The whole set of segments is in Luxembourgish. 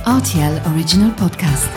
Rtl Original Podcast.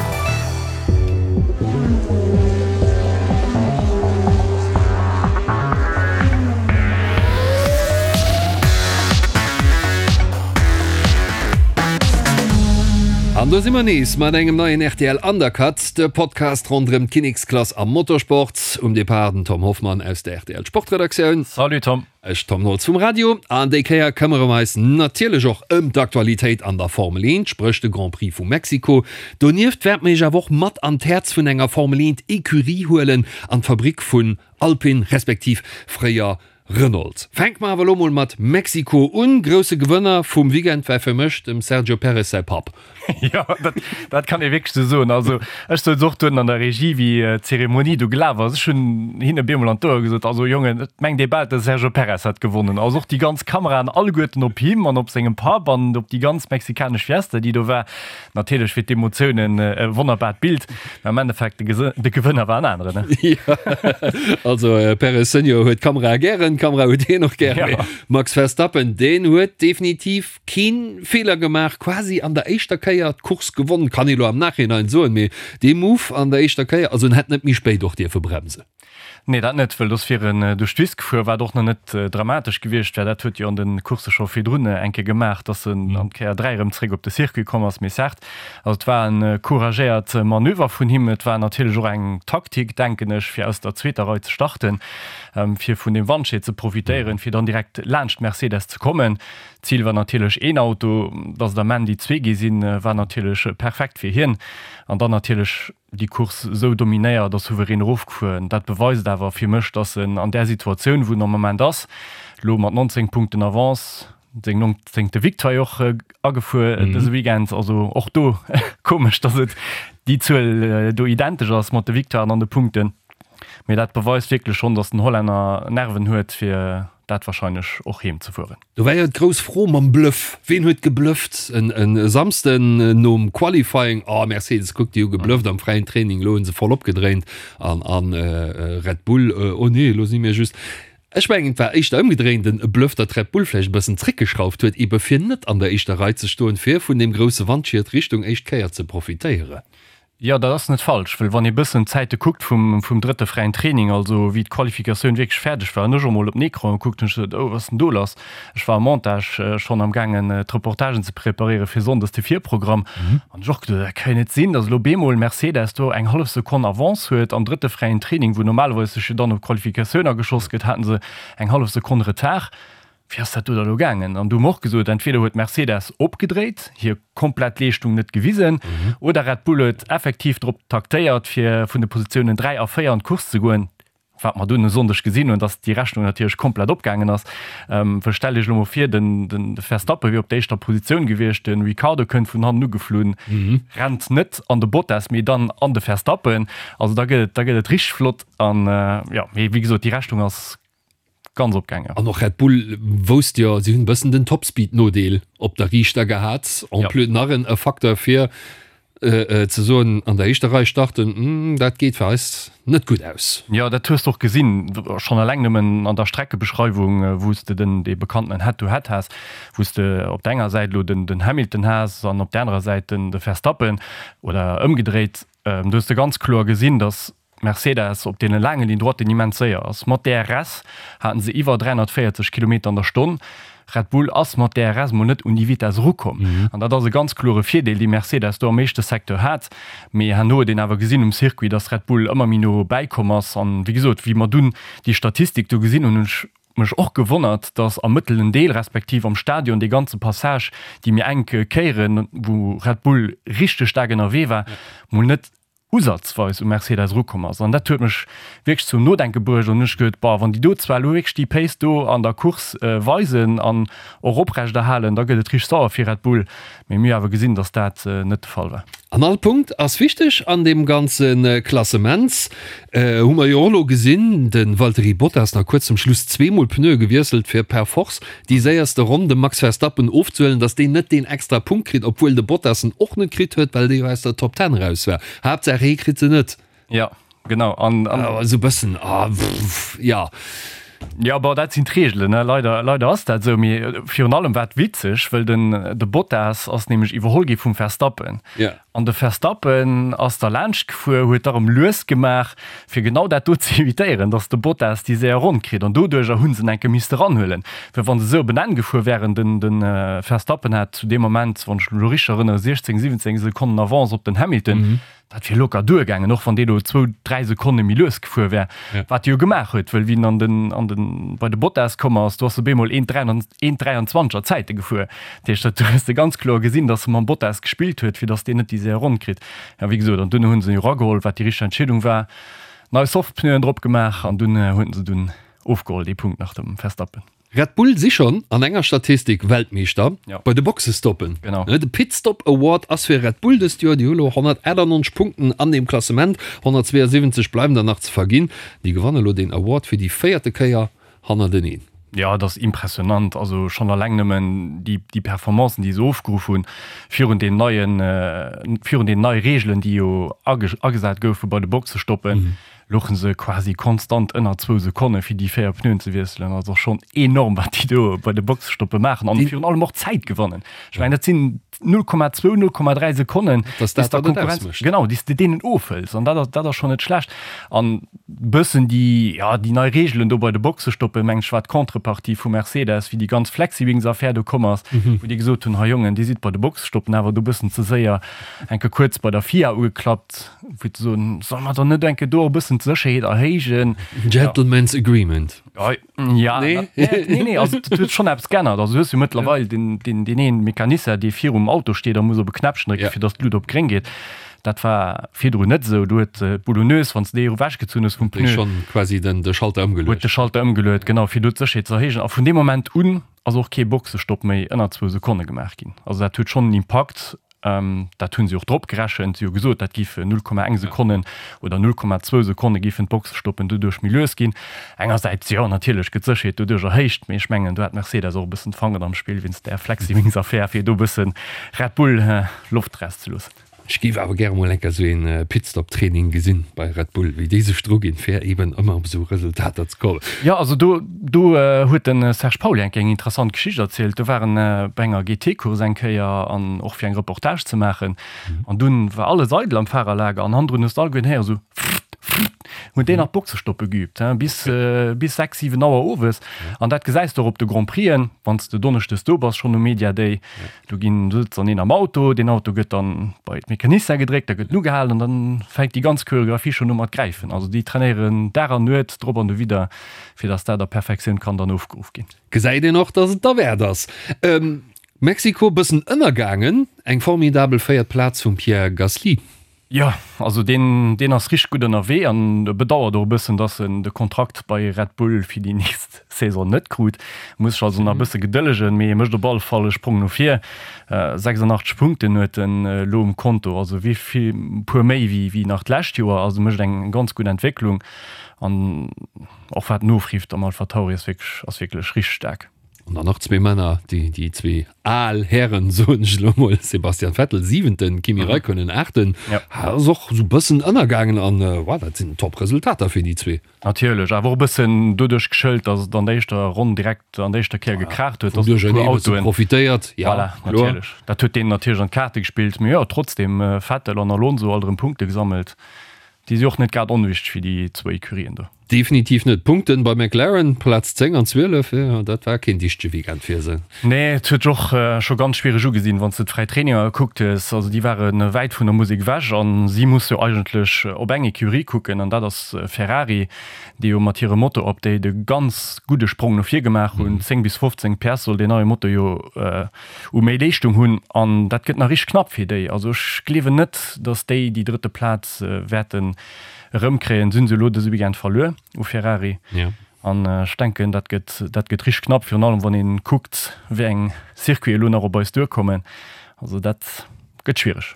An do si mer nees mat engem neien rtl Undercut, de Podcast ronderëm d'Kinneksklass am Motorsport. Um Depart den Tom Hoffmann aus der rtl Sportredaktioun. Salut Tom. Ech, Tom Nolz vum Radio. An déi Kéier këmmere mer eis natierlech och ëm d'Aktualitéit an der Formel 1, spréch de Grand Prix vu Mexiko. Donieft wäerte mer iech awer och mat an d'Häerz vun enger Formel 1 Ecurie huelen, an d'Fabrick vun Alpine, respektiv fréier Renault. Fänke mer awer elo mol mat Mexiko un. Grousse Gewënner vum Weekend war fir mech dem Sergio Perez säi Papp. Jo, dat, dat kann ee wierklech esou soen. Also ech souz och duerno an der Regie, wéi d'Zeremonie do gelaf ass, ech hunn hinne bemol an d'Ouer gesot, also Jongen, et mengt ee bal, de Sergio Perez hätt gewonnen. Also och déi ganz Kameraen alleguerten op him an op sengem Papp an op déi ganz mexikanesch Fiesta, déi do war. Natierlech fir d'Emotiounen e wonnerbart Bild, mä am Endeffekt de, de Gewënner war en aneren. Jo, also Perez Senior huet d'Kamerae gären, d'Kamera huet hien och gären, mee Max Verstappen, deen huet definitiv Keen Feeler gemaach, quasi an der éischter Kéier d'Course gewonnen, kann ee lo am Nachhinein soen, mee dee Move an der éischter Kéier, also en hätt net méi spéit och dierfe bremsen. Nee, dat net, wëll dass wier en duerch d'Wiss gefuer, wat och nach net dramatesch gewiescht wär. Dat huet jo an de Coursse scho virdrun eng Kéier gemaach, dass en an d'Kéier 3 erëm zréck op de Circuit komm ass. Mee certes, also et war e couragéiert Manöver vun him. Et war natierlech och eng Taktik, denken ech, fir aus der zweeter Rei ze starten, fir vun deem Wandschied ze profitéieren, fir dann direkt laanscht Mercedes ze kommen. D'Zil war natierlech een Auto, dass et am Enn déi zwee gi sinn, war natierlech perfekt fir hien. An dann natierlech déi Course esou dominéiert a souverän erofgefuer. Dat beweist awer fir mech, dass en an där Situatioun, wou en am Moment ass, elo mat 19 Punkten Avance, seng nongzéngte Victoire och agefuer dëse Weekend, also och do komesch, dass et déi Zuel do identesch ass mat de Victoiren an de Punkten, mee dat beweist wierklech schonn, dass den Hollänner Nerven huet, fir dat wahrscheinlech och heem ze fueren. Do war jo d'grouss Fro mam Bluff, Ween huet geblufft en Samsden nom Qualifying? Oh Mercedes, kuck déi hu geblufft am fräien Training, elo hu se voll opgedréint an an Red Bull, oh nee, elo si mir just. Ech mengen et war éischter ëmgedréint en Bluff, datt Red Bull vläicht e bëssen zréckgeschrauft huet, ebe fir net an der éischter Rei ze stoen, fir vun deem grousse Wandschiet Richtung éischt Kéier ze profitéieren. Jo, dat ass net falsch, well wann ee bëssen d'Zäite kuckt vum, vum drëtte fräien Training, also wéi d'Qualifikatioun wierklech fäerdeg war, hunn ech och mol op den Ecran gekuckt, hunn ech gesot, oh, wat ass denn do lass? Ech war am Montage schonn am gaangen d'Reportagen ze preparéiere fir sonndes de Virprogramm, an ech och geduet, dat ka jo net sinn, datt elo bemol Mercedes do eng hallef Sekonn Avance huet am drëtte fräien Training, wou normalerweis sech jo dann op d'Qualifikatioun ageschoss gëtt, haten se eng hallef Sekonn Retard. Wéi ass dat do da lo gaangen? An du hu mer och gesot, entweder huet Mercedes opgedréit, hir komplett Leeschtung net gewisen, oder Red Bull huet effektiv drop taktéiert, fir vun de Positiounen 3 a 4 an d'Course ze goen, wat mer dunn e Sonndeg gesinn hunn, dass déi Rechnung natierlech komplett opgaangen ass. Well stellt Iech elo mol vir, den Verstappen wier op der éischter Positioun gewiescht, de Ricciardo kënnt vun hannen ugeflunn, rennt net an de Bottas, mee dann an de Verstappen. Also da gëtt et, da gëtt et richteg flott. An jo, mee wéi gesot, déi Rechnung ass Ganz opgaangen. An och Red Bull wousst jo, si hunn e bëssen den Topspeed-Nodeel op der Riichter gehat. En plus nach en e Facteur fir ze soen, an der éischter Rei starten, dat geet fir eis net gutt aus. Jo, dat hues de och gesinn, schonn eleng nëmmen an der Streckebeschreiwung, wou s de den dee bekannten Head-to-Head has, wou s de op der enger Säit elo den Hamilton has an op der anerer Säit den de Verstappen oder ëmgedréit. Do hues de ganz kloer gesinn, datt Mercedes op deene laange Ligne droiten immens séier ass. Mat DRS haten se iwwer 340 Kilometer an der Stonn. Red Bull ass mat DRS mol net un déi Vitess erukomm. An dat ass e ganz klore Virdeel, dee Mercedes do am éischte Secteur hat. Mee herno huet een awer gesinn um Circuit, dass Red Bull ëmmer méi no bäikomm ass. An wéi gesot, wéi mer dunn déi Statistik do gesinn hunn, hunn ech mech och gewonnert, dass am mëttelen Deel, respektiv am Stadion, dee ganze Passage, déi méi enk Kéieren, wou Red Bull richteg staark ënnerwee war, mol net usazweis u Mercedes erukomm ass. An dat huet mech wierklech zum Nodenke bruecht an hunn ech geduet, Boah, wann déi do zwar elo wierklech déi Pace do an der Course weisen an och oprechterhalen, da gëtt et richteg sauer fir Red Bull. Mee mir hu awer gesinn, datt dat net de Fall war. An all Punkt ass wichteg an deem ganze Klassement. Hu mer jo och elo gesinn, de Valtteri Bottas nach kuerz zum Schluss zweemol Pneue gewiesselt, fir per force déi séierste Ronn dem Max Verstappen ofzehuelen, datt deen net deen extra Punkt kritt, obwuel de Bottas en och net kritt huet, well dee jo aus der Top Ten eraus war. Haaptsaach hee kritt se net. Jo, genau. An, an. Esou bëssen, ah, jo. Jo, bon, dat sinn d'Reegelen, ne? Leider, leider ass dat esou. Mee virun allem war et witzeg, wëll den, de Bottas ass nämlech iwwerholl gi vum Verstappen. Ja. An de Verstappen ass da laanscht gefuer, huet da rëm lues gemaach, fir genau dat do ze evitéieren, datt de Bottas déi séier Ronn kritt. An doduercher hu se en enke misste ranhuelen, well wa se esou op en Enn gefuer wären, den, de Verstappen hat zu deem Moment, wann ech mech elo richteg erënnere, 16, 17 Sekonnen Avance op den Hamilton. Dat wier locker duergaangen, och wann dee lo zwou, dräi Sekonne méi lues gefuer wär, wat e jo gemaach huet, wëll wéi en an den, an den, bei de Bottas komm ass, do ass e bemol 1,23 er Zäite gefuer. Dat heescht, dat hues de ganz kloer gesinn, datt e mam Bottas gespillt huet, fir datt deen net déi séier Ronn kritt. Ja, wéi gesot, an dunn hu se en jo erageholl, wat déi richteg Entscheedung war, nei Softpneuen drop gemaach an dunn huet se dunn ofgeholl, dee Punkt nach dem Verstappen. Red Bull si schonn an enger Statistik Weltmeeschter bei de Boxestoppen. De Pitstop Award ass fir Red Bull dëst Joer. Déi hu lo 198 Punkten an deem Klassement, 172 bleiwen der nach ze verginn. Déi gewanne lo deen Award fir déi véierte Kéier hannerteneen. Jo, et ass impressionant. Also schonn alleng nëmmen déi Performancen, déi se ofgeruff hunn virun deenen neien, virun deenen neie Reegelen, déi jo agesat goufe bei de Boxestoppen. Louchen se quasi konstant ënner zwou Sekonne fir déi 4 Pneuen ze wiesselen. Also schonn enorm wat déi do bei de Boxestoppe maachen an virun allem och Zäit gewannen. Ech mengen dat sinn 0,2, 0,3 Sekonnen, déi s der Konkurrenz, genau, déi s de deenen ofhëls an dat ass, dat ass schonn net schlecht. An bëssen déi, ja, déi nei Reegelen do bei de Boxestoppen, mengen ech, war d'Contrepartie vu Mercedes, wéi déi ganz Flexiwings-Affär do komm ass, wou déi gesot hunn, hei Jongen, dir sidd bei de Boxestoppen awer do bëssen ze séier, enke kuerz bei der FIA ugeklappt. Fir ze soen, solle mer dann net enke do e bëssen d'Sécherheet erhéijen? Gentleman's Agreement. Ja, nee, nee, nee, also dat huet schonn eppes geännert. Also du hues jo mëttlerweil deen, deen, deen een Mecanisser, dee virum Auto steet a muss op e Knäppchen drécken, fir datt d'Lut op gréng geet. Dat war virdrun net esou. Do huet d'Boulonneuse, wann s de déi ewechgezunn hues vum Pneu, huet schonn quasi den, de Schalter ëmgeluecht. Huet de Schalter ëmgeluecht, genau, fir do d'Sécherheet ze erhéijen. A vun deem Moment un ass och kee Boxestopp méi ënner zwou Sekonne gemaach ginn. Also dat huet schonn en Impakt. Dat hu si och drop gerechent. Si hu gesot, dat géife 0,1 Sekonnen oder 0,2 Sekonne géifen d'Boxestoppen doduerch méi lues ginn. Engersäits, jo, natierlech gëtt d'Sécherheet doduerch erhéicht, mee ech mengen, do hat Mercedes och e bëssen d'Fanger am Spill wéinst där Flexiwings-Affär, fir do e bësse Red Bull Loft erauszeloossen. Ech géif awer gäre mol enker esou een Pitstop-Training gesinn bei Red Bull, wéi déi sech dru ginn, fir eben ëmmer op esou Resultater ze kommen. Jo, also do, do huet de Serge Pauly eng Kéier eng interessant Geschicht erzielt. Do war en bei enger GT-Course eng Kéier an och fir eng Reportage ze maachen. An dunn war alles eidel am Fahrerlager an hannendrun hues de alleguerten héieren esou frrrt, frrrt, huet deen nach d'Boxestoppe geübt, hein, bis, bis 6, 7 Auer owes. An dat gesäis de och op de Grand Prixen, wann s de donneschdes do bass schonn um Media Day. Do ginn, do sëtzt dann een am Auto, deen Auto gëtt dann bei d'Mecanicien gedréckt, da gëtt en ugehalen an dann fänkt déi ganz Choreographie schonn u mat gräifen. Also déi trainéieren Dag an Nuet drop an dowidder, fir dass dat a Perfektioun kann dann ofgeruff ginn. Gesäit een och, dass et derwäert ass. Mexiko bëssen ënnergaangen, eng formidabel véiert Plaz vum Pierre Gasly. Jo, also deen, deen ass richteg gutt ënnerwee an e bedauert och e bëssen, dass en de Kontrakt bei Red Bull fir déi nächst Saison net krut. Muss sech also nach e bësse gedëllegen, mee e mécht op alle Fall e Sprong no vir. 86 Punkten huet en elo um Konto, also wéi vill, e puer méi wéi, wéi nach d'lescht Joer. Also mécht eng ganz gutt Entwécklung an och wat en ofrifft am AlphaTauri ass wierklech, ass wierklech richteg staark. An dann nach zwee Männer, déi, déi zwee al Hären, soen ech elo mol, Sebastian Vettel, siwenten, Kimi Räikkönen, aachten. Ja. Ass och esou bëssen ënnergaangen an, wow, dat sinn top Resultater fir déi zwee. Natierlech, awer och e bëssen doduerch geschëlt, datt et an der éischter Ronn direkt an der éischter Kéier gekraacht huet, datt e puer Autoen. Profitéiert, ja, voilà, natierlech. Dat huet deenen natierlech an d'Kaarte gespillt. Mee jo, trotzdem, Vettel an Alonso alt erëm Punkte gesammelt. Déi si och net grad onwichteg fir déi zwou Ecurien do. Definitiv net. Punkten bei McLaren, Plaz 10 an 12, jo dat war keen dichtege Weekend fir se. Nee, et huet sech och scho ganz schwiereg ugesinn, wann s de d'fräi Traininger gekuckt hues. Also déi ware wäit vun der Musek ewech a si musse jo eigentlech op eng Ecurie kucken an dat ass Ferrari, déi jo mat hirem Motor-Update e ganz gudde Sprong no vir gemaach hunn. 10 bis 15 PS soll deen neie Motor jo u méi Leeschtung hunn an dat gëtt nach richteg knapp fir déi. Also ech gleewen net, datt déi déi drëtte Plaz wäerten erëmkréien. Se hunn se elo dëse Weekend verluer u Ferrari. Ja. An ech denken, dat gëtt, dat gëtt richteg knapp, virun allem wann ee kuckt, wéi eng Circuiten elo nach op eis duerkommen. Also dat gëtt schwiereg.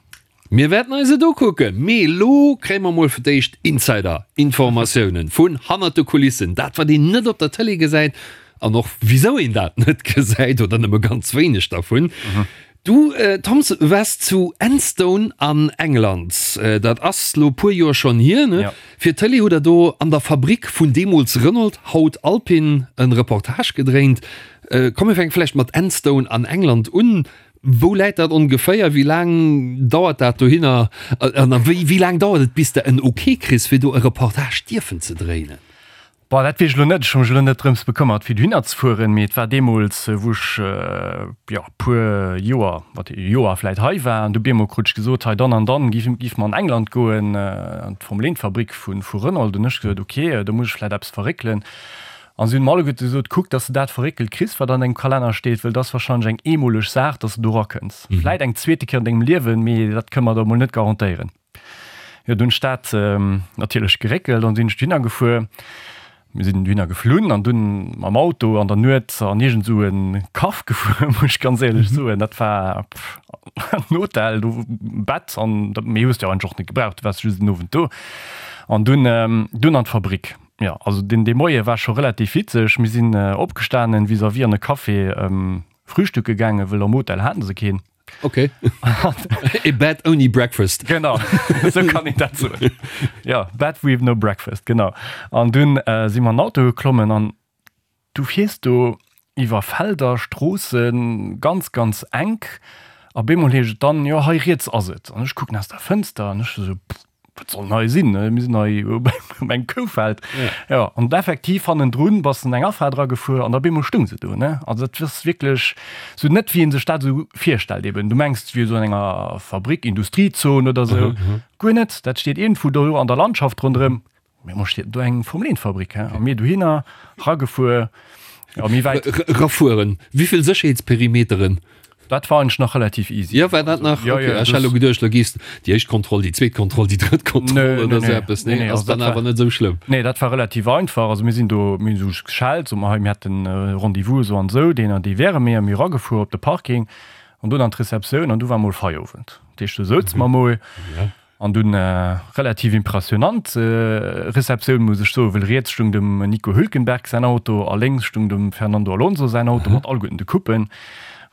Mir wäerten eis et ukucken, mee elo kréie mer mol fir d'éischt Insider-Informatiounen vun hannert de Kulissen, dat wat een net op der Tëlee gesäit an och wisou een dat net gesäit oder nëmme ganz wéineg dervun. Du Toms waars zu Enstone an England, dat ass lo puer Joer schonn hier, ne? Fir d'Tëlee hutt der do an der Fabrik vun deemools Renault, haut Alpine, en Reportage gedréint. Komm mir fänke vläicht mat Enstone an England un. Wou läit dat ongeféier? Wéi laang dauert dat dohinner? An wéi laang dauert et bis de en Ok kriss fir do e Reportage dierfen ze dréinen? Bon, dat weess ech elo net. Ech hu mech elo net drëms bekëmmert, fir dohinner ze fueren, mee et war deemools, wou ech, jo, e puer Joer, wat, e Joer vläit hei war, an du bemol krut ech gesot, hei dann an dann giff, giff mer an England goen, an d'Formel-Eent-Fabrick vu, vu Renault. Hunn ech gesot, ok, do muss ech vläit eppes verréckelen. An si hunn mer alleguerte gesot, kuck, dass de dat verréckelt kriss, wat an dengem Kalenner steet, wëll dat ass wahrscheinlech eng eemoleg Saach, dass de do erakënns. Vläit eng zweete Kéier an dengem Liewen, mee dat kënne mer der emol net garantéieren. Jo, dunn hunn ech dat natierlech geréckelt an sinn ech dohinner gefuer. Mir sinn dohinner geflunn an dunn mam Auto an der Nuet an iergend esou e Kaff gefuer, muss ech ganz éierlech soen. Dat war en Hotel, do Bett an dat méi hues de jo eigentlech och net gebraucht, du waars just en Owend do. An dunn, dunn an d'Fabrik. Jo, also deen, dee Moie war scho relativ witzeg. Mir sinn opgestanen, vis-à-vis an e Café frühstücke gaangen, wëll am Hotel haten se keen. Okay. E Bed ouni Breakfast. Genau, esou kann een dat soen. Ja, Bed with no breakfast, genau. An dunn äh, si mer an den Auto geklommen an du fiers do iwwer Felder, Stroossen, ganz, ganz enk. A bemol heescht et dann, jo, hei riets ass et. An ech kucken aus der Fënster an ech esou, pff, wat soll denn hei sinn? Mir sinn hei op engem Koufeld. Ja, an effektiv hannendrun bass de an eng Afaart eragefuer an da op eemol stoung se do, ne? Also dat ass wierklech sou net wéi ee sech dat esou virstellt eben. Du mengs et wier esou an enger Fabrik, Industriezon oder sou. Guer net, dat steet iergendwou do an der Landschaft ronderëm. Mee mo steet do eng Formel 1 Fabrik, he? A mir dohinner ragefuer, ja, méi wäit. Rafueren, wéivill Sécherheetsperimeteren? Dat war eigentlech nach relativ easy. Jo, war dat nach? Ja, ja, Ech hat elo geduecht, lo gees déi éischt Kontroll, déi zweet Kontroll, déi drëtt Kontroll nee, oder nee, sou eppes. Nee, nee, ass dann awer net esou schlëmm. Nee, dat war relativ einfach. Also mir sinn do, mir hunn esou geschellt, so mer hei, mir hätten Rendez-vous esou an esou, deen an dee wäre mir. Mir eragefuer op de Parking an dunn an d'Receptioun an du war mol Feierowend. Dat heescht, do souze mer mol. Ja. An dunn relativ impressionant Receptioun, muss ech soen, wëll riets stung dem Nico Hülkenberg säin Auto a lénks stung dem Fernando Alonso säin Auto mat alleguerten de Coupen.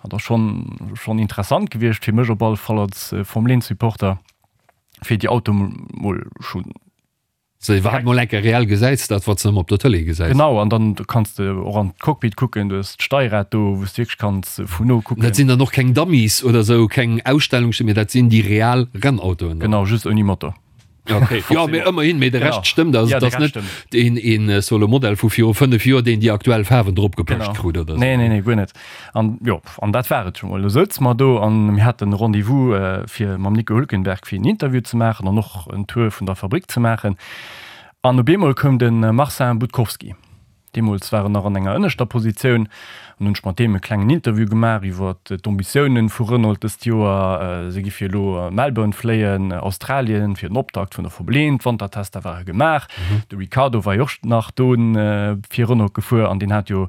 Dat ass schonn schonn interessant gewiescht fir mech op alle Fall als Formel 1 Supporter, fir déi Autoe mol schonn Sou iwwerhaapt mol enke reell gesäis, dat wat s de ëmmer op der Tëlee gesäis. Genau, an dann kanns de och an d'Cockpit kucken, du hues d'Steierrad do, wou s de wierklech kanns vun no kucken. Dat sinn dann och keng Dummies oder sou, keng Ausstellungsstück, mee dat sinn déi real Rennautoen dann. Genau, just ouni Motor. Okay, jo, mee ëmmerhin, mee de Rescht stëmmt. Also et ass net een, een solo Modell vu viru 5 Joer, deen déi aktuell Faarwen drop gepëscht krut oder sou. Nee, nee, nee, guer net. An jo, an dat war et scho mol. Du souz mer do an mir haten e Rendez-vous fir mam Nico Hülkenberg fir en Interview ze maachen an och en Tour vun der Fabrik ze maachen. An op eemol koum de Marcin Budkowski. Deemools war en nach an enger ënneschter Positioun. An hunn ech mat deem e klengen Interview gemaach iwwer d'Ambitiounen vu Renault dëst Joer. Si gi fir elo Melbourne fléien, Australien, fir den Optakt vun der Formel 1. D'Wantertester ware gemaach. De Ricciardo war jo och nach do fir Renault gefuer an deen hat jo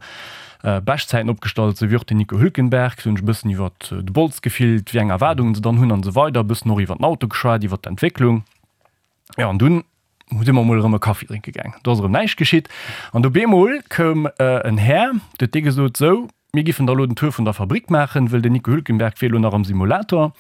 Beschtzäiten opgestallt, sou wéi och den Nico Hülkenberg. Sou hunn ech e bëssen iwwer de Bols gefillt, wéi eng Erwaardungen se dann hunn an esou weider. E bëssen och iwwer den Auto geschwat, iwwer d'Entwécklung. Jo, an dunn si mer mol erëm e Kaffi drénke gaang. Do ass erëm näischt geschitt. An du bemol koum en Här, du huet dee gesot, Sou, mir giffen da elo den Tour vun der Fabrik maachen, wëll den Nico Hülkenberg wier elo nach am Simulator.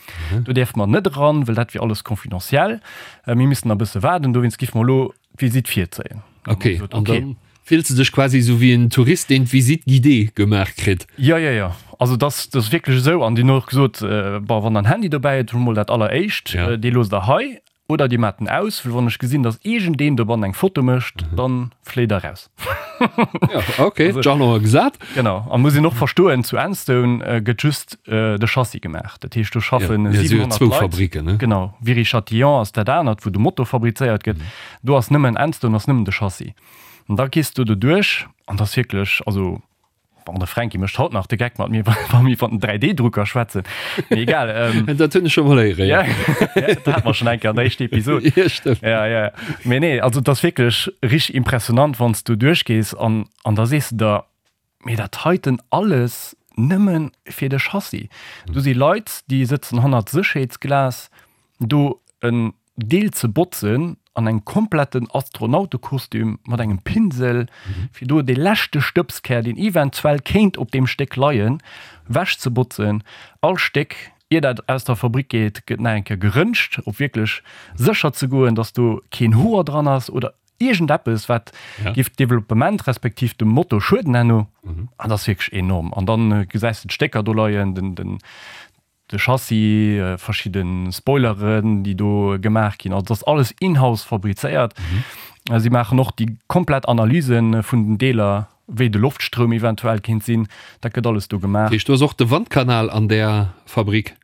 Do däerfe mer net eran, wëll dat wier alles confidentiel. Mir missten nach e bësse waarden, dowéinst giffe mer elo d'Visitt virzéien. Okay, an dann fills de dech quasi esou wéi en Tourist, deen d'Visite guidée gemaach kritt. Jo, jo, jo. Also dat ass wierklech esou. An déi hunn och gesot, bon, wann der en Handy dobäi hutt, hutt mol dat alleréischt, dee loosst der hei oder dir maacht en aus, well wann ech gesinn, datt iergendeen dobannen eng Foto mécht, dann fléit der raus. Jo, okay, d'Jalon gesat. Genau. An muss een och verstoen, zu Enstone gëtt just de Chassis gemaach. Dat heescht, do schaffen 700 Leit. Fabriken, ne? Genau. Viry-Châtillon ass dat anert, wou de Motor fabrizéiert gëtt. Do ass nëmmen Enstone ass nëmmen de Chassis. An da gees du do duerch an dat ass wierklech, also bon, de Fränki mécht haut nach de Geck mat mir, wa mir iwwer den 3D-Drucker schwätzen. Mee egal. Ähm, dat hunn ech scho mol héieren, ja. Ja, dat hate mer schonn eng Kéier an der éischter Episod. Ja, stëmmt. Ja, ja. Mee nee, also dat ass wierklech richteg impressionant, wann s du duerchgees an, an da sees de der, Mee dat heiten alles nëmme fir de Chassis. Do si Leit, déi sëtzen hannert Sécherheetsglas, do en Deel ze botzen. an engem kompletten Astronautekostüm mat engem Pinsel, fir do dee leschte Stëbskär, deen eventuell kéint op deem Stéck leien, wechzebotzen. All Stéck, ier dat aus der Fabrik geet, gëtt nach eng Kéier geröntgt, op wierklech sécher ze goen, dass do keen Hoer dran ass oder iergendeppes, wat géif d'Developpement respektiv dem Motor schueden herno. An dat ass wierklech enorm. An dann gesäis de d'Stécker do leien, den, de Chassis, verschidde Spoileren, déi do gemaach ginn. Also dat ass alles in-house fabrizéiert. Si maachen och déi komplett Analyse vun den Deeler, wéi de Loftstroum eventuell kéint sinn. Dat gëtt alles do gemaach. Dat heescht, do ass och de Wandkanal an där Fabrik?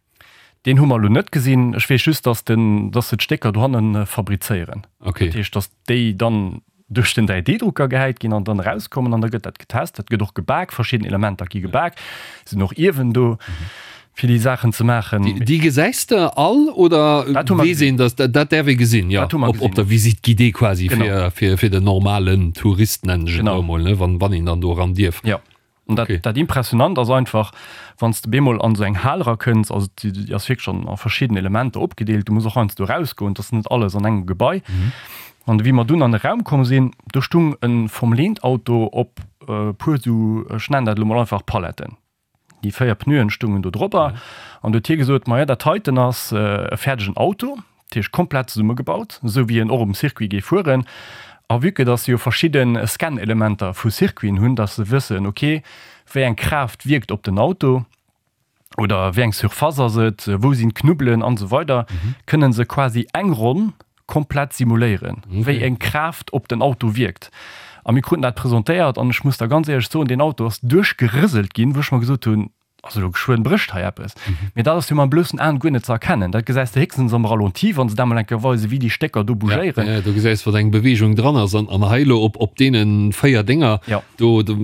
Deen hu mer elo net gesinn. Ech weess just, dass den, dass se d'Stécker dohanne fabrizéieren. Dat heescht, dass déi dann duerch den 3D-Drucker gehäit ginn an dann erauskommen an da gëtt dat getest. Dat gëtt och gebak, verschidden Elementer gi gebak, sinn och Iewen do fir déi Saachen ze maachen. Déi gesäis de all oder weess een, datt dat däerf ee gesinn? Jo, op der Visite guidée quasi fir fir den normalen Tourist, nennen ech et elo emol, wann een dann do eran dierf. Jo. An dat, okay. dat Impressionant ass einfach, wann s de bemol an esou eng Hal erakënns, also déi, déi ass wierklech an a verschidden Elementer opgedeelt, du muss och heiansdo erausgoen, et ass net alles an engem Gebai. Mhm. An wéi mer dunn an e Raum komm sinn, do stung e Formel-Eent-Auto op e puer esou, ech nennen dat elo mol einfach Paletten. Déi 4 Pneuen stungen do drobber. Mhm. An du huet hie gesot, Maja, dat heiten ass e fäerdegen Auto, dat heescht komplett zesummegebaut, esou wéi en och um Circuit géif fueren. A vue que dass se jo verschidde Scan-Elementer vu Circuiten hunn, dass se wëssen, ok, wéi eng Kraaft wierkt op den Auto oder wéi eng Surface ass et, wou sinn d'Knubbelen an esou weider, kënne se quasi eng Ronn komplett simuléieren, wéi eng Kraaft op den Auto wierkt. A mir kruten dat presentéiert an ech muss der ganz éierlech soen, deen Auto ass duerchgerëselt ginn, wou ech mer gesot hunn, Also elo geschwënn brécht hei eppes. Mee dat ass jo mam bloussen Aen guer net ze erkennen. Dat gesäis de héchstens am Ralenti, wann se dat mol eng Kéier weisen, wéi déi Stécker do bougéieren. Ja, do gesäis wat eng Beweegung dran ass. An, an hei elo op, op deene 4 Dénger, Ja. do, do,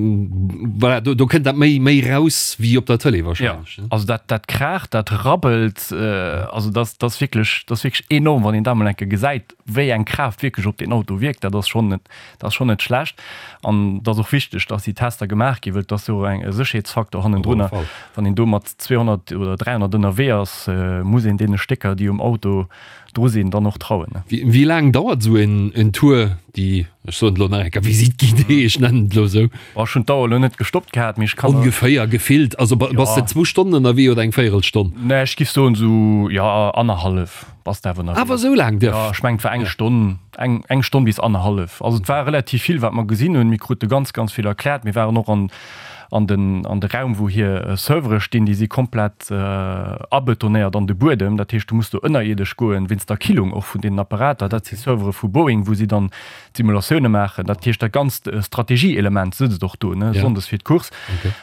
voilà, do, do kënnt dat méi, méi raus wéi op der Tëlee Ja, wahrscheinlech, ne? also dat, dat kraacht, dat rabbelt, also dat, dat ass wierklech, dat ass wierklech enorm, wann een dat mol eng Kéier gesäit, wéi eng Kraaft wierklech op deen Auto wierkt. Dat ass schonn net, dat ass schonn net schlecht. An et ass och wichteg, dass déi Tester gemaach ginn, well et ass jo och eng e Sécherheetsfaktor hannendrunner. Wann een do mat 200 oder 300 ënnerwee ass, muss een deene Stécker, déi um Auto dru sinn, dann och trauen. Wéi laang dauert esou en Tour, déi, ech soen et elo nach eng Kéier, Visite guidée, ech nennen et elo esou? Bon, ech hunn d'Auer elo net gestoppt gehat, mee ech kann. Ongeféier gefillt, also bass de zwou Stonnen ënnerwee oder eng Véierelstonn? Nee, ech giff soen esou, jo, annerhallef bass de awer ënnerwee. Awer esou laang dierf? Jo, ech mengen et war eng Stonn. Eng, eng Stonn bis annerhallef. Also et war relativ vill, wat mer gesinn hunn. Mir krute ganz, ganz vill erkläert. Mir waren och an, an den, an de Raum, wou hir Servere stinn. Déi si komplett abetonéiert an de Buedem. Dat heescht, du muss do ënnerierdesch goen, wéinst der Killung och vun deenen Apparater. Dat si Servere vu Boeing, wou si dann d'Simulatioune maachen. Dat heescht, dat ganzt Strategie-Element sëtzt och do, ne, sonndes fir d'Course.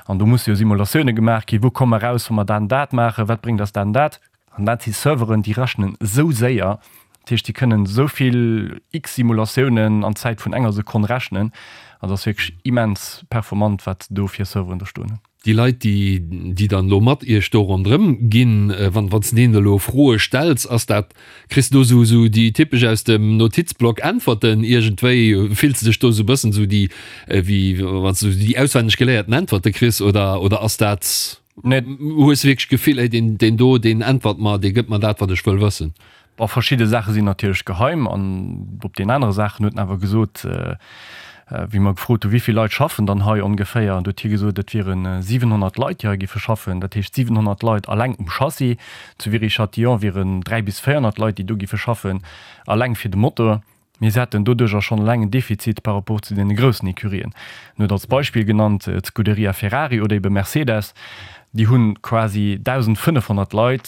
An do musse jo Simulatioune gemaach ginn. Wou komme mer raus, wa mer dat an dat maachen? Wat bréngt eis dat an dat? An dat si Serveren, déi rechnen esou séier, dat heescht, déi kënnen esou vill x Simulatiounen an Zäit vun enger Sekonn rechnen. Also ass wierklech immens performant, wat do fir Serveren do stoen hunn. Déi Leit, déi, déi dann elo mat Iech do ronderëm ginn, wann, wann s de deenen elo Froe stells, ass dat, kriss de do esou, esou déi typesch aus dem Notizblock Äntwerten iergendwéi? Fills de dech do esou e bëssen esou déi, wéi wann s de esou déi auswenneg geléierten Äntwerte kriss oder, oder ass dat, Nee. Hues de wierklech d'Gefill, ey, deen, deen do, deen äntwert mer, dee gëtt mer dat, wat ech wëll wëssen? Bon, verschidde Saache sinn natierlech geheim an op deenen anere Saachen huet en awer gesot, wéi mer gefrot hu wéi vill Leit schaffen dann hei ongeféier, an du huet hie gesot, et wiere 700 Leit, déi hei géife schaffen. Dat heescht 700 Leit alleng um Chassis. Zu Viry-Châtillon wieren 300 bis 400 Leit, déi do géife schaffen, alleng fir de Motor. Mir hätten doduercher schonn eleng en Defizit par rapport zu deene groussen Ecurien. En huet als Beispill genannt d'Scuderia Ferrari oder ebe Mercedes, déi hu quasi 1.500 Leit,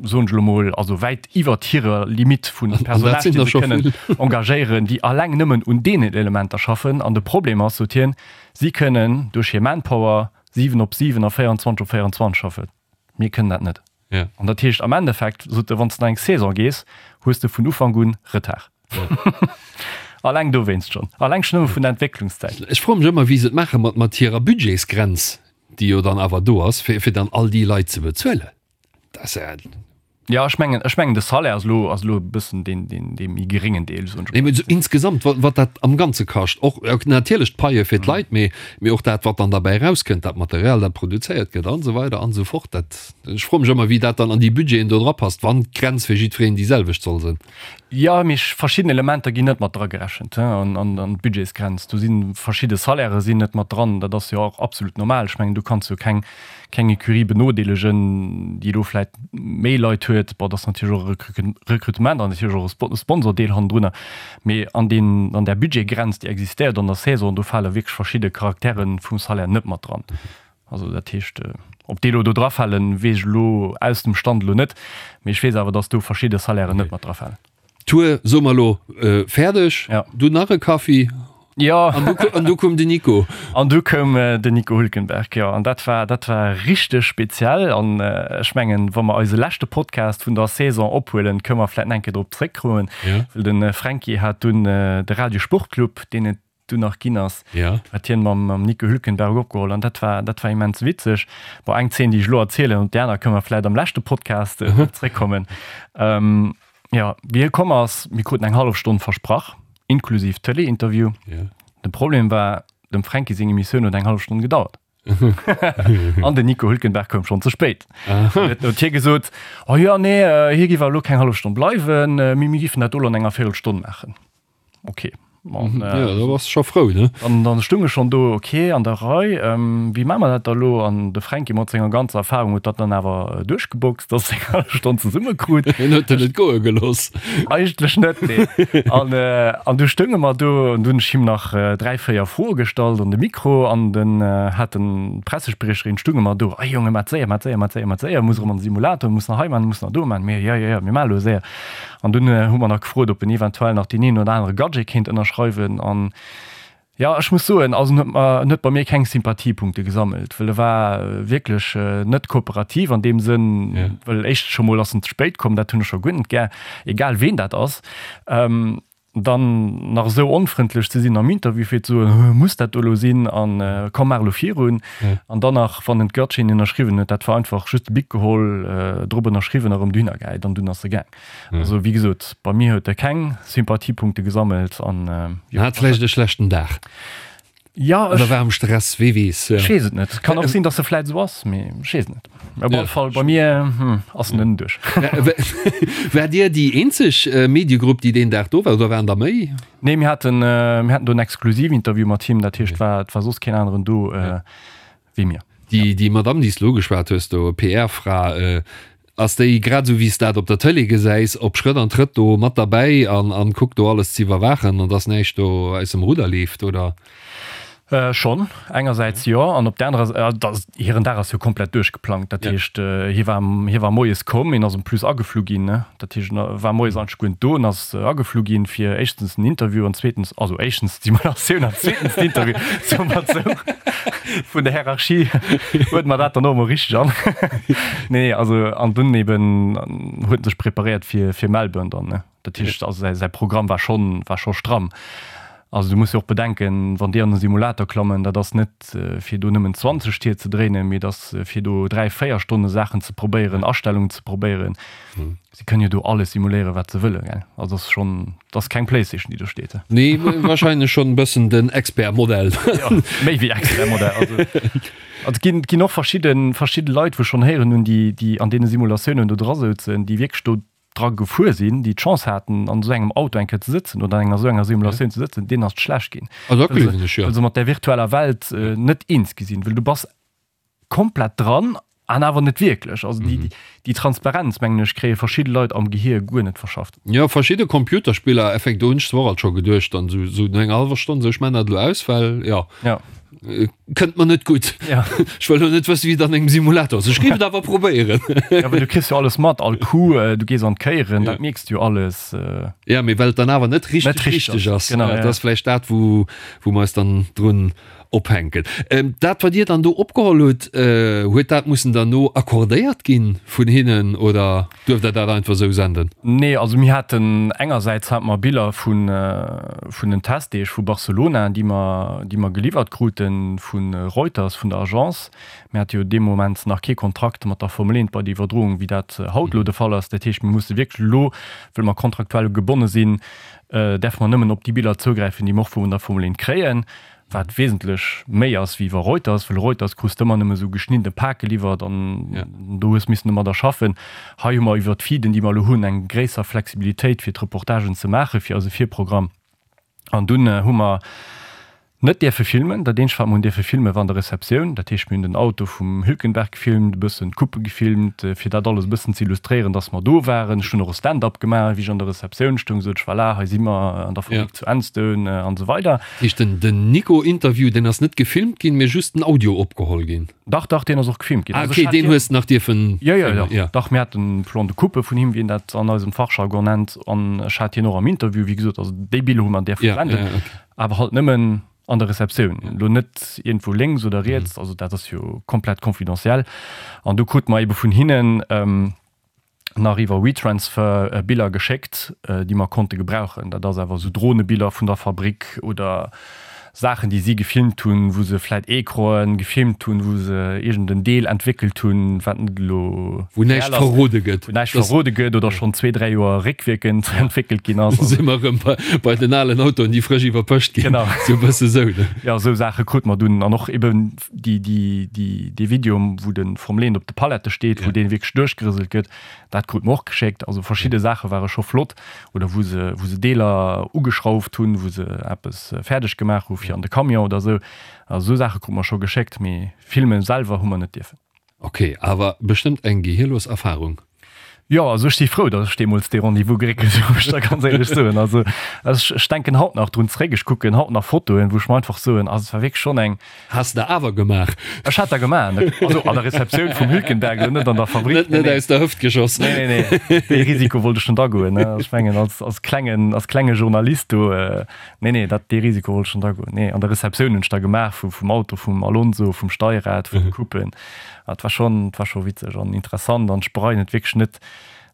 soen ech elo mol, also wäit iwwert hirer Limitt vu Personal, déi se kënnen engagéieren, déi eleng nëmmen un deenen Elementer schaffen. An de Problem ass, sot hien, si kënnen duerch hir Manpower 7 op 7 a 24 op 24 schaffen. Mir kënnen dat net. Ja. An dat heescht am Endeffekt, sot e, wann s de an eng Saison gees, hues de vun Ufank un Retard. Alleng dowéinst schonn. Alleng schonn nëmme vun der Entwécklungszäit. Ech froe mech ëmmer, wéi se et maache mat, mat hirer Budgetsgrenz, déi jo dann awer do ass, fir, fir dann all déi Leit ze bezuelen. Dat ass ja. Jo, ech mengen, ech mengen de Salaire ass elo, ass elo e bëssen deen, deen, dee méi geréngen Deel, soen ech Nee, mee esou insgesamt, wat, wat dat am Ganze kascht, och natierlech d'Paie fir d'Leit, mee, mee och dat, wat dann derbäi erauskënnt, dat Material, dat produzéiert gëtt an esou weider an esou fort. Dat, ech froe mech ëmmer, wéi dat dann an déi Budgeten do drapasst, wann d'Grenz fir jiddwereen déi selwecht soll sinn. Jo, mee verschidden Elementer ginn net mat dragerechent an, an, an d'Budgetsgrenz. Do si verschidde Salairë sinn net mat dran. Dat ass jo och absolut normal. Ech mengen, du kanns jo keng, keng Ecurie benodeelegen, déi elo vläit méi Leit huet. Bon, dat ass natierlech och e Recrutement an natierlech och e Sponsordeel hannendrunner. Mee an deen, an där Budgetgrenz, déi existéiert an der Saison, do fale wierklech verschidde Charaktere vum Salaire net mat dran. Also dat heescht, ob déi elo do drafalen, weess ech elo aus dem Stand elo net. Mee ech weess awer, datt do verschidde Salairen net mat drafalen. Tour, soe mer elo, fäerdeg. Ja. Du nach e Kaffi. Ja. An du, an du koum den Nico. An du koum den Nico Hülkenberg, jo. An dat war, dat war richteg speziell. An ech mengen, wa mer eise leschte Podcast vun der Saison ophuelen, kënne mer vläicht nach eng Kéier drop zréckkommen. Ja. Well de Fränki hat dunn de Radio Sportclub, deen et dunn nach ginn ass, ja. hat hien mam, mam Nico Hülkenberg opgeholl an dat war, dat war immens witzeg. Bon, eng Zeen, déi ech elo erzielen, op déi aner kënne mer vläicht am leschte Podcast äh, mhm. zréckkommen. Ähm, ja, wéi hie komm ass, mir kruten eng hallef Stonn versprach, inklusiv Tëlee-Interview. Ja. De Problem war, dem Fränki seng Emissioun huet eng hallef Stonn gedauert. An den Nico Hülkenberg koum schonn ze spéit. Huet huet hie gesot, oh ja, nee, äh, hie giff awer elo keng hallef Stonn bleiwen, äh, mee mir giffen dat elo an enger Véirelstonn maachen. Okay. An, äh, ja, da warst scho frou, ne? An dann stung ech schon do, okay, an der Rei, ähm, wéi maache mer dat da lo? An de Fränki mat senger ganzer Erfahrung huet dat dann awer äh, duerchgeboxt, dass eng hallef Stonn zesumme krut. Hien huet en net goe gelooss. Eigentlech net, nee. An, äh, an du stounge mer do an du hunn ech him nach äh, dräi, véier Froe gestallt an de Mikro an den äh, hat den Pressespriecherin stunge mer do, Ei Jonge, mat séier, mat séier, mat séier, mat séier, muss erëm an de Simulator, muss nach hei man, muss nach do man. Mir, ja, ja, ja, mir maache lo séier. An dunn hu mer nach gefrot, ob en eventuell nach deen een oder anere Gadget kéint ënnerschreiwen. An jo, ech muss soen, also en huet mer, en huet bei mir keng Sympathiepunkte gesammelt, well e war wierklech net kooperativ an deem Sënn, well éischtens scho mol ass en ze spéit komm, dat hunn ech scho guer net gär, egal ween dat ass. Dann nach esou onfrëndlech ze sinn am Interview fir ze soen, muss dat do elo sinn an komm maach elo virun. An dann nach wann en d'Gutschein ënnerschriwwen huet, dat war einfach just de Bic geholl, drop ënnerschriwwen a rëm dohinner gehäit an dunn ass e gaang. Also wéi gesot, bei mir huet e keng Sympathiepunkte gesammelt an jo. Hat vläicht e schlechten Dag. Ja, Oder war am Stress, wee weess. Ech weess et net. Kann och sinn, datt e vläit esou ass, mee ech weess et net. Op alle Fall, bei mir ass en net duerch. Waart Dir déi eenzeg Mediegrupp, déi deen Dag do war, oder waren der méi? Nee, mir haten, mir haten do en Exklusivinterview mat him, dat heescht, et war soss keen aneren do wéi mir. Déi, déi Madamm, déi s de elo ugeschwat hues do, PR-Fra, ass déi, grad esou wéi s dat op der Tëlee gesäis, op Schrëtt an Trëtt do mat derbäi an, an kuckt do alles ze iwwerwaachen an dass näischt do aus dem Rudder leeft, oder? Schonn, engersäits jo, an op der anerer Säit, hiren Dag ass jo komplett duerchgeplangt. Dat heescht, hie war, hie war moies komm, hien ass en plus ageflu ginn, ne? Dat heescht, en war moies eigentlech guer net do, en ass ageflu ginn, fir éischtens den Interview an zweetens, also éischtens d'Simulatioun an zweetens den Interview, soe mer et esou. Vun der Hierarchie huet mer dat dann och emol richteg an. Nee, also an dunn eben huet en sech preparéiert fir, fir Melbourne dann, ne? Dat heescht, also säi, säi Programm war schonn, war scho stramm. Also du muss jo och bedenken, wann déi an e Simulator klammen, dat ass net fir do nëmmen 20 Tier ze dréinen, mee et ass fir do 3, 4 Stonne Saachen ze probéieren, Astellungen ze probéieren. Si kënnen jo do alles simuléieren, wat se wëllen, gell? Also ass schonn, dat ass keng Playstation, déi do steet. Nee, wahrscheinlech schonn e bëssen den Expert-Modell. Jo, méi wéi Expert-Modell. Also, also et ginn, et ginn och verschidde, verschidde Leit, wou ech schonn héieren hunn, déi, déi an deene Simulatiounen do dra souzen, déi wierklech do dra gefuer sinn, déi d'Chance haten, an esou engem Auto eng Kéier ze sëtzen oder an enger esou enger Simulatioun ze sëtzen, deenen ass et schlecht ginn. Ah, dat gleewen ech, jo. Well se mat där virtueller Welt net eens gi sinn, well du bass komplett dran an awer net wierklech. Also déi, déi Transparenz, mengen ech, kréie verschidde Leit am Gehier guer net verschafft. Jo, verschidde Computerspiller, effekt, do hunn ech zwar och alt scho geduecht, dann esou, esou no enger hallwer Stonn, esou, ech man dat elo aus, well, jo, Ja. kënnt mer net gutt. Ja. Ech wëll elo net wëssen, wéi et an engem Simulator ass. Ech géif et awer probéieren. Ja, well du kriss jo alles mat, all Coup, du gees an d'Kéieren, dat mierks du jo alles. Ja, mee well et dann awer net richteg Net richteg richteg ass. Genau, Dat ja. ass vläicht dat, wou, wou mer eis dann drun. Ophänken. Dat wat Dir dann do opgeholl hutt, huet dat mussen derno accordéiert ginn vun hinnen oder duerft Der dat einfach esou senden? Nee, also mir haten engersäits hate mer Biller vun vun den Testdeeg vu Barcelona, déi mer déi mer geliwwert krute vu Reuters, vun der Agence. Mir hate jo dee Moment nach kee Kontrakt mat der Formel 1 bei der Iwwerdroung, wéi dat haut elo de Fall ass. Dat heescht, mir musse wierklech elo, wëll mer kontraktuell gebonne sinn, däerfe mer nëmmen op déi Biller zougräifen, déi mer och vun der Formel 1 kréien. Wat wesentlech méi ass wéi iwwer Reuters, well Reuters krus de ëmmer nëmme sou geschniddene Pak geliwwert an do hues missen domadder schaffen. Hei hu mer iwwer d'Feeden, déi mer elo hunn, eng gréisser Flexibilitéit fir d'Reportagen ze maache fir eise Virprogramm. An dunn hu mer net dierfe filmen. Dat eenzegt wat mer hunn dierfe filmen, war an der Receptioun. Dat heescht mir hunn den Auto vum Hülkenberg gefilmt, e bëssen d'Coupe gefilmt, fir dat alles e bëssen ze illustréieren, dass mer do waren. Ech hunn och e Stand-up gemaach, wéi ech an der Receptioun stoung, sot ech, Voilà, hei si mer an der Fabrik zu Enstone an esou weider. Heescht den den Nico Interview deen ass net gefilmt ginn, mee just den Audio opgeholl ginn? Dach dach deen ass och gefilmt ginn. Ah ok, deen hues de nach dierfen Jo jo dach jo dach mir haten Plan de coupe vun him, wéi een dat an eisem Fachjargon nennt, an ech hat hien och am Interview, wéi gesot, also déi Biller hu mer dierfe verwenden, awer halt nëmmen an der Receptioun, elo net iergendwou lénks oder riets, also dat ass jo komplett confidentiel an du krute mer ebe vun hinnen nach iwwer WeTransfer Biller geschéckt, déi mer konnte gebrauchen. Dat ass awer esou Dronebiller vun der Fabrik oder Saachen, déi si gefilmt hunn, wou se vläit Ecranen gefilmt hunn, wou se iergend en Deel entwéckelt hunn, wat net elo Wou näischt reell ass, verrode gëtt. wou näischt verrode gëtt oder schonn zwee, dräi Joer réckwierkend entwéckelt ginn ass. Si mer erëm bei, bei den alen Autoen, déi frësch iwwerpëscht ginn. Genau. Sou e bësse sou, ne? Jo, esou Saache krute mer dunn an och eben déi, déi, déi, dee Video, wou de Formel 1 op de Palette steet, wou dee wierklech duerchgerëselt gëtt, dat krut mer och geschéckt. Also verschidde Saache ware scho flott. Oder wou se, wou se Deeler ugeschrauft hunn, wou se eppes fäerdeg gemaach hu fir an de Camion oder esou. Also esou Saache krut mer scho geschéckt, mee filme selwer hu mer net dierfen. Ok, awer bestëmmt eng gehirlos Erfahrung. Jo, also ech si frou, datt ech deemools dee Rendez-vous geréckelt hunn, muss ech der ganz éierlech soen. Also ech, ech denken haut nach drun zréck, ech kucken haut nach Fotoen, wou ech mer einfach soen, also et war wierklech schonn eng. Has de awer gemaach? Ech hat der gemaach, also an der Receptioun vum Hülkenberg, elo net an der Fabrik. Net, net aus der Hëft geschoss. Nee, nee, nee, dee Risiko wollt ech net agoen, ne. Ech mengen, als, als klengen, als klenge Journalist do, nee, nee, dat, dee Risiko wollt ech net agoen. Nee, an der Receptioun hunn ech der gemaach vu, vum Auto vum Alonso, vum Steierrad, vun de Coupen. Et war schon, et war scho witzeg an interessant an ech bereien et wierklech net,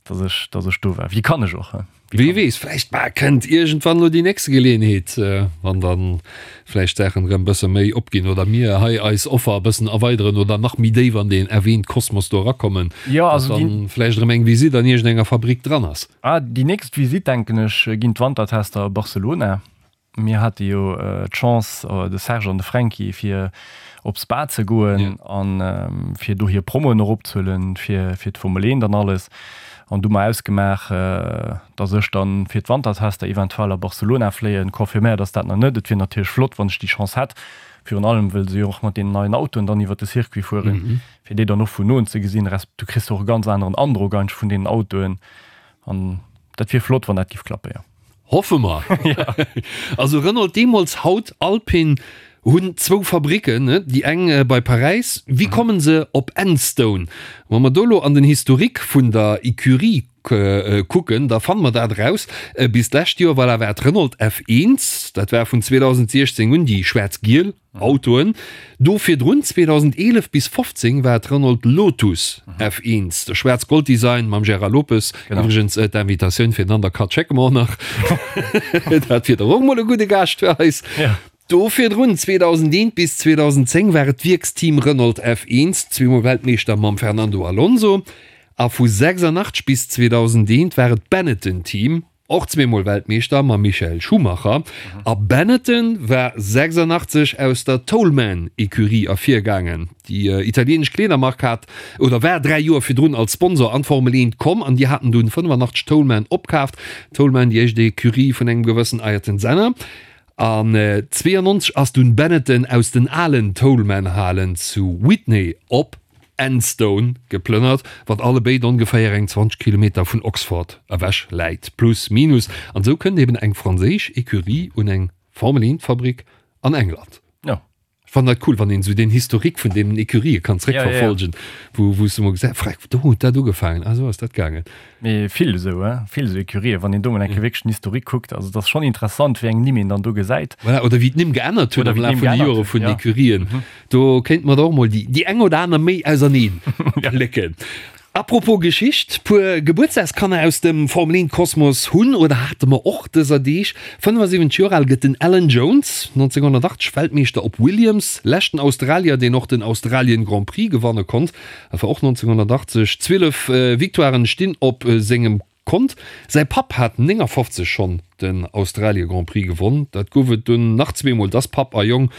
dass ech, dass ech do war. Wéi kann ech och, he? Wie weess, vläicht bah, kënnt iergendwann lo déi nächste Geleeënheet, wann dann vläicht d'Saachen erëm bësse méi opginn oder mir hei eis Offer e bëssen erweideren oder nach méi déif an deen erwähnt Kosmos do erakommen, Jo, dass also déi. dann vläicht erëm eng Visitt an iergendenger Fabrik dran ass. Ah, déi nächst Visitt, denken ech, ginn d'Wantertester a Barcelona. Mir hate jo d'Chance, de Serge an de Fränki, fir op Spa ze goen a fir do hir Promoen och opzehuelen, fir d'Formel 1 an alles. An du hu mer ausgemaach, datt ech dann fir d'Wantertester eventuell a Barcelona fléien. Confirméiert ass dat nach net. Et wier natierlech flott, wann ech déi Chance hätt, virun allem wëll se jo och mat deenen neien Autoen dann iwwer de Circuit fueren, fir déi dann och vun noen ze gesinn. Resp. Du kriss och e ganz aneren Androck eigentlech vun deenen Autoen. An dat wier flott, wann dat giff klappen, jo. Hoffe mer. Also Renault deemools, haut Alpine, hunn zwou Fabricken, déi eng bei Paräis. Wéi kommen se op Enstone? Wa mer do lo an den Historique vun der Ecurie kucken, da fanne mer dat eraus. Bis d'lescht Joer, voilà, war et Renault F1, dat war vun 2016 un déi schwaarz-giel. Autoen. Do virdrun, 2011 bis 15, war et Renault Lotus F1, de schwaarz-gold Design mam Gérard Lopes. Iwwregens d'Invitatioun fir den Undercut schécke mer och nach. Dat wier dach och mol e gudde Gaascht fir eis. Do virdrun, 2001 bis 2010, war et d'Wierksteam Renault F1, zweemol Weltmeeschter mam Fernando Alonso. A vu 86 bis 2001 war et d'Benetton-Team. Och zweemol Weltmeeschter mam Michael Schumacher. A Benetton war 86 aus der Toleman-Ecurie ervirgaangen. Déi italieenesch Kleedermark hat oder war 3 Joer virdrun als Sponsor an d'Formel 1 komm an déi haten dunn 85 Toleman opkaaft. Toleman, déi éischt Ecurie vun engem gewëssen Ayrton Senna. An 92 ass dunn Benetton aus den alen Toleman-Halen zu Witney op Enstone geplënnert, wat allebéid ongeféier eng 20 Kilometer vun Oxford ewech läit, plus minus. An esou kënnt eben eng franséisch Ecurie un eng Formel 1 Fabrik an England. Jo. Fannen dat cool, wann een esou deen Historique vun deenen Ecurië kann zréckverfolgen, wou wou s de mol gesäis, freck, do huet dat ugefaangen, ah esou ass dat gaangen. Mee vill esou, hein, vill esou Ecurië, wann een do mol eng Kéier wierklech den Historique kuckt, also et ass schonn interessant, wéi eng Nimm een dann do gesäit. Voilà, oder wéi d'Nimm geännert hunn am Laf vun de Jore vun den Ecurien. Do kéinte mer der och mol déi déi eng oder aner méi auserneen plécken. Apropos Geschicht, puer Gebuertsdagskanner aus dem Formel 1 Kosmos hunn oder hate mer och dëser Deeg. 75 Joer al gëtt den Alan Jones, 1980 Weltmeeschter op Williams, leschten Australier deen och den Australien Grand Prix gewanne konnt, dat war och 1980. 12 Victoiren stinn op sengem Kont. Säi Papp hat 59 schonn den Australie Grand Prix gewonn. Dat gouf et dunn nach zweemol, dass Papp a Jong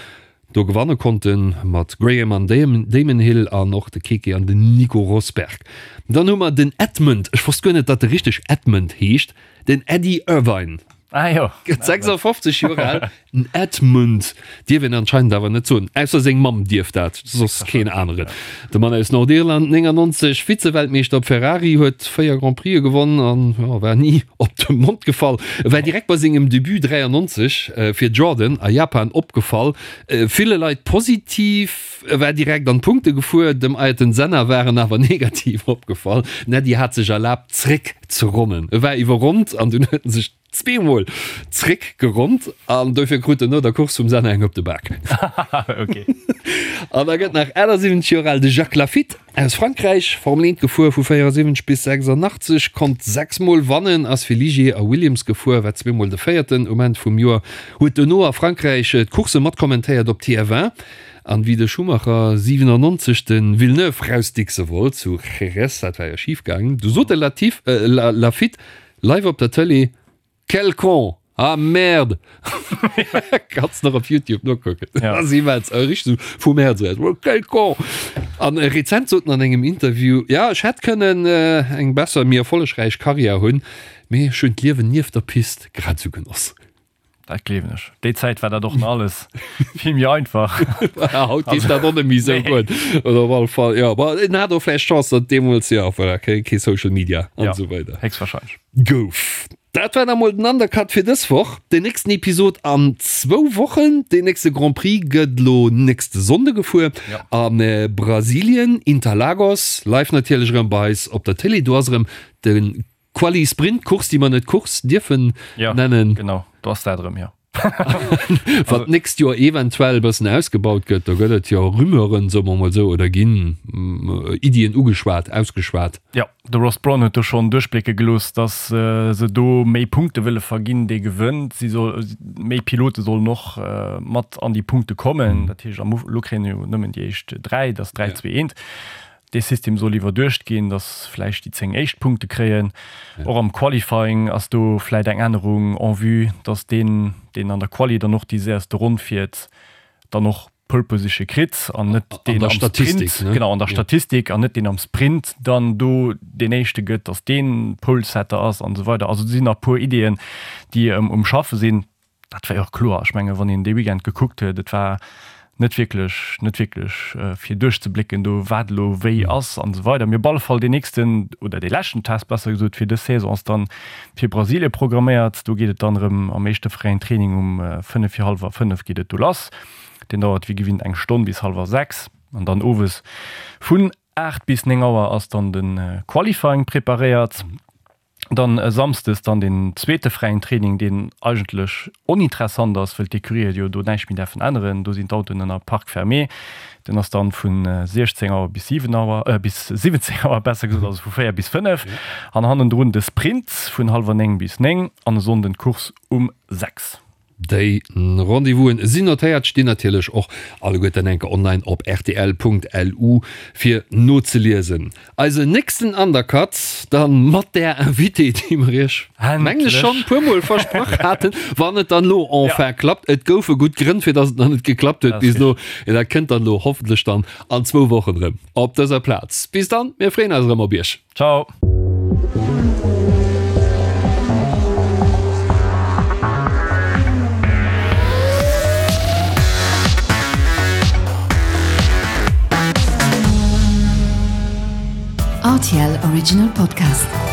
do gewanne konnten, mat Graham an Damon Hill an och de Keke an den Nico Rosberg. Dann hu mer den Edmund, ech wosst guer net, datt e richteg Edmund heescht, den Eddie Irvine. Ah jo. Gëtt 56 Joer al. Den Edmund dierf een anscheinend awer net soen, ausser seng Mamm dierf dat, soss keen aneren. De Mann aus Nordirland, 99 Vize-Weltmeeschter op Ferrari, huet 4 Grand Prixë gewonn an jo, war ni op de Mond gefall. E war direkt bei sengem Debut 93 fir Jordan a Japan opgefall, ville Leit positiv, e war direkt an d'Punkte gefuer, dem Ayrton Senna war en awer negativ opgefall. Den Eddie hat sech erlaabt zréck ze ronnen, e war iwwerronnt an dunn huet en sech Zweemol zréck geronnt an dofir krut en no der Course vum Senna eng op de Bak. Okay. An da gëtt nach 78 Joer al de Jacques Laffite aus Frankräich, Formel 1 gefuer vu 74 bis 86, konnt 6 Mol wannen, ass fir Ligier a Williams gefuer, war zweemol de Véierten um Enn vum Joer, huet dono a Frankräich d'Coursse matkommentéiert op TF1. An wéi de Schumacher 97 de Villeneuve rausdickse wollt zu Jerez, dat war jo schif gaangen, du sot de Laffite, Live op der Tëlee, Quel con! Ah merde! Kanns nach op Youtube nokucken. Ja. Ass immens, äh, richteg sou vum Häerz eraus. Oh, quel con! An äh, rezent sot en an engem Interview, ja, ech hätt kënnen äh, eng besser, méi erfollegräich Karriär hunn, mee ech hunn d'Liewen nieft der Pist grad esou genoss. Dat gleewen ech. Déi Zäit war dat och nach alles vill méi einfach. Haut geet dat och net méi esou gutt. Oder op alle Fall, jo. Bon, en hat och vläicht Chance, datt deemools, jo, voilà, kee, kee Social Media an Ja, esou weider héchstwahrscheinlech. gouf. Dat war da mol den Undercut fir dës Woch. Den nächsten Episod an zwou Wochen. Den nächste Grand Prix gëtt elo nächste Sonnde gefuer Ja. a Brasilien, Interlagos. Live natierlech erëm bei eis op der Télé. Do ass erëm de Quali Sprint Course, déi mer net Course dierfen ja, nennen. Genau, do ass dat erëm, jo. Wat d'nächst Joer eventuell e bëssen ausgebaut gëtt, do gëtt et jo Rumeuren, soe mer mol esou, oder ginn Iddien ugeschwat, ausgeschwat. Jo, de Ross Brawn huet do schonn duerchblécke gelooss, datt se do méi Punkte wëlle verginn, dee gewënnt. Si soll, méi Pilote sollen och mat an déi Punkte kommen. Dat heescht, am Uf, elo kréien jo nëmmen déi éischt 3, dat ass 3, 2, 1. Dee System soll iwwerduecht ginn, datt vläicht déi 10 éischt Punkte kréien. Och am Qualifying ass do vläicht eng Ännerung en vue, datt deen, deen an der Quali dann och déi séierste Ronn fiert, dann och Pole Position kritt an net deen am Sprint, genau, an der Statistik, an net deen am Sprint dann do deen éischte gëtt, datt deen Polesetter ass an esou weider. Also do sinn nach e puer Ideeën, déi um Schaffe sinn. Dat war jo och kloer. Ech menge wann een dee Weekend gekuckt huet, et war net wierklech, net wierklech fir duerchzeblécken do, wat elo wéi ass an esou weider. Mee op alle Fall deen nächsten oder dee leschten Test besser gesot fir dës Saison ass dann fir Brasilie programméiert. Do geet et dann erëm am éischte fräien Training um 5 fir hallwer 5 geet et do lass. Deen dauert wéi gewinnt eng Stonn bis hallwer 6 an dann owes vun 8 bis 9 Auer ass dann de Qualifying preparéiert. Dann e Samsdes dann den zweete fräien Training, deen eigentlech oninteressant ass, wëll d'Ecurië jo do näischt méi däerfen änneren. Do sinn d'Autoen ënner Parc fermé. Den ass dann vu 16 Auer bis 7 Auer, bis 17 Auer besser gesot, also vu 4 bis 5. An hannendrun de Sprint vun hallwer 9 bis 9 an e Sonnden d'Course um 6. Déi Rendez-vousen sinn notéiert, stinn natierlech och alleguerten enke online op rtl.lu fir nozeliesen. Eisen nächsten Undercut dann mat där Invitée, déi mer iech mengen ech schonn puer mol versprach haten, wann et dann elo enfin klappt. Et goufe gutt Grënn fir dass et nach net geklappt huet bis elo. Dat kënnt dann elo hoffentlech dann an zwou Wochen erëm op dëser Plaz. Bis dann, mir freeën eis erëm op iech. Ciao. RTL Original Podcast.